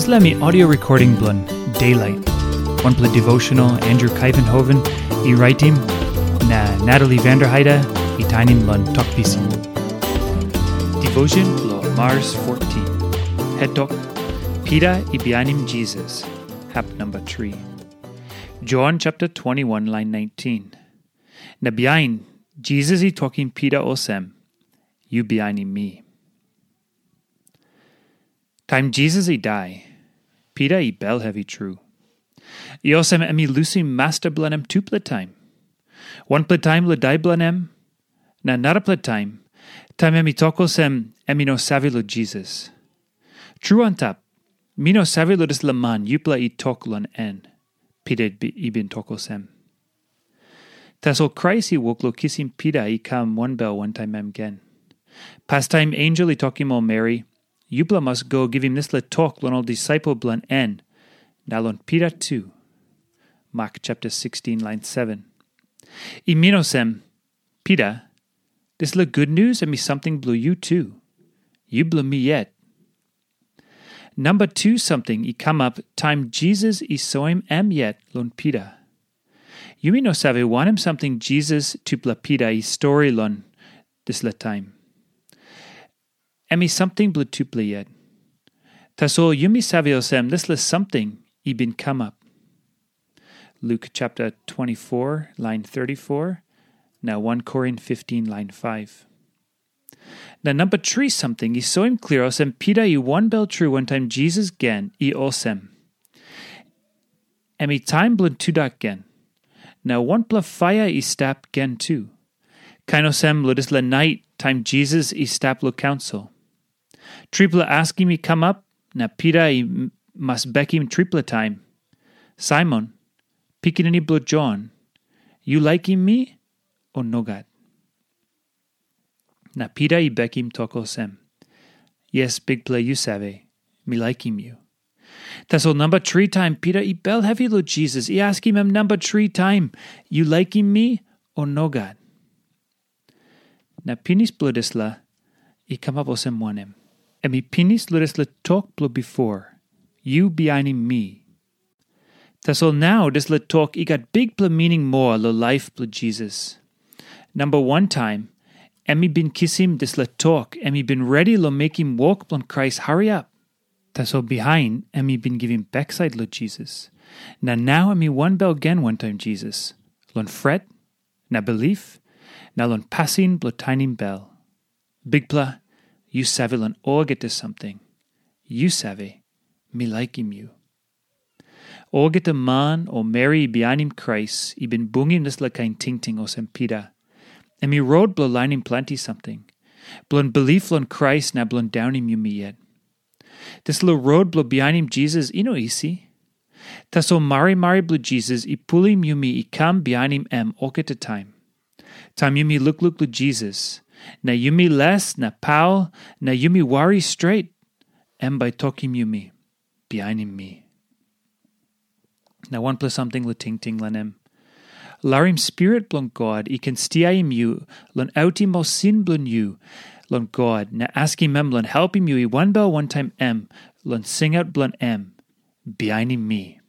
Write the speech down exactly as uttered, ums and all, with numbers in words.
Dispela mi audio recording bilong Daylight, wanpela devotional Andrew Kaivenhoven i raitim, na Natalie Vanderheide i tainim long Tok Pisin. Devotion bilong Mars fourteen. Hetok, Pita i bihainim Jisas, hap number three. John chapter twenty-one, line nineteen. Na bihain, Jisas i tokim Pita olsem, "Yu bihainim mi." Taim Jisas i dai, Pita i bel hevi tru. I olsem em i lusim masta bilong em tupela taim. Wanpela taim long dai bilong em, na narapela taim, taim em i tok olsem em i no save long Jisas. Tru antap, mi no save long dispela man yupela i tok long en, Pita i bin tok olsem. Tasol Krais i wok long kisim Pita i kam wanbel wantaim em gen. Pastaim ensel i tokim ol meri, "Yupela mas go givim dispela tok long ol disaipel bilong en, na long Pita tu." Mak chapter sixteen, lain seven. I min olsem, Pita, dispela gutnius em i samting bilong yu tu. Yu bilong mi yet. Namba tu samting i kamap taim Jisas i soim em yet long Pita. Yumi no save wanem samting Jisas tupela Pita i stori long dispela taim. Em i samting bilong tupela yet. Tasol yumi save olsem dispela samting i bin kamap. Luk chapter twenty-four, lain thirty-four, na one Korin fifteen, lain five. Na namba tri samting i soim klia olsem Pita i wanbel tru wantaim Jisas gen i olsem. Em i taim bilong tudak gen. Na wanpela paia i stap gen tu. Kain olsem long dispela nait taim Jisas i stap long kaunsil. Tripela askim i kamap, na Pita i m-, mas bekim tripela taim. "Saimon, pikinini bilong Jon, yu laikim mi, o nogat?" Na Pita i bekim tok olsem, "Yes, Bikpela, yu save, mi laikim yu." Tasol namba tri taim Pita i bel hevi long Jisas, i askim em namba tri taim, "Yu laikim mi, o nogat?" Na pinis bilong dispela i kamap olsem wanem? Em i pinis long dispela tok bilong bipo, "Yu bihainim mi." Tasol nau dispela tok i gat bikpela mining moa long laip bilong Jisas. Namba wan taim, em i bin kisim dispela tok, em i bin redi long mekim wok bilong Krais hariap. Tasol bihain em i bin givim baksait long Jisas. Na nau em i wanbel gen wantaim Jisas, long pret, na bilip, na long pasin bilong tainim bel. "Bikpela, yu save long olgeta samting. Yu save, mi laikim yu." Olgeta man o meri i bihainim Krais i bin bungim dispela kain tingting olsem Pita. Em i rot bilong lainim planti samting. Bilong bilip long Krais na bilong daunim yumi yet. Dispela rot bilong bihainim Jisas i no isi. Tasol marimari bilong Jisas i pulim yumi i kam bihainim em olgeta taim. Taim yumi lukluk long Jisas, na yumi les na paul, na yumi wari stret, em bai tokim yumi, "Bihainim mi." Na wanpela samting long tingting long em. Larim Spirit bilong God i ken stiaim yu long autim ol sin bilong yu long God, na askim em long helpim yu i wanbel wantaim em long singaut bilong em, "Bihainim mi."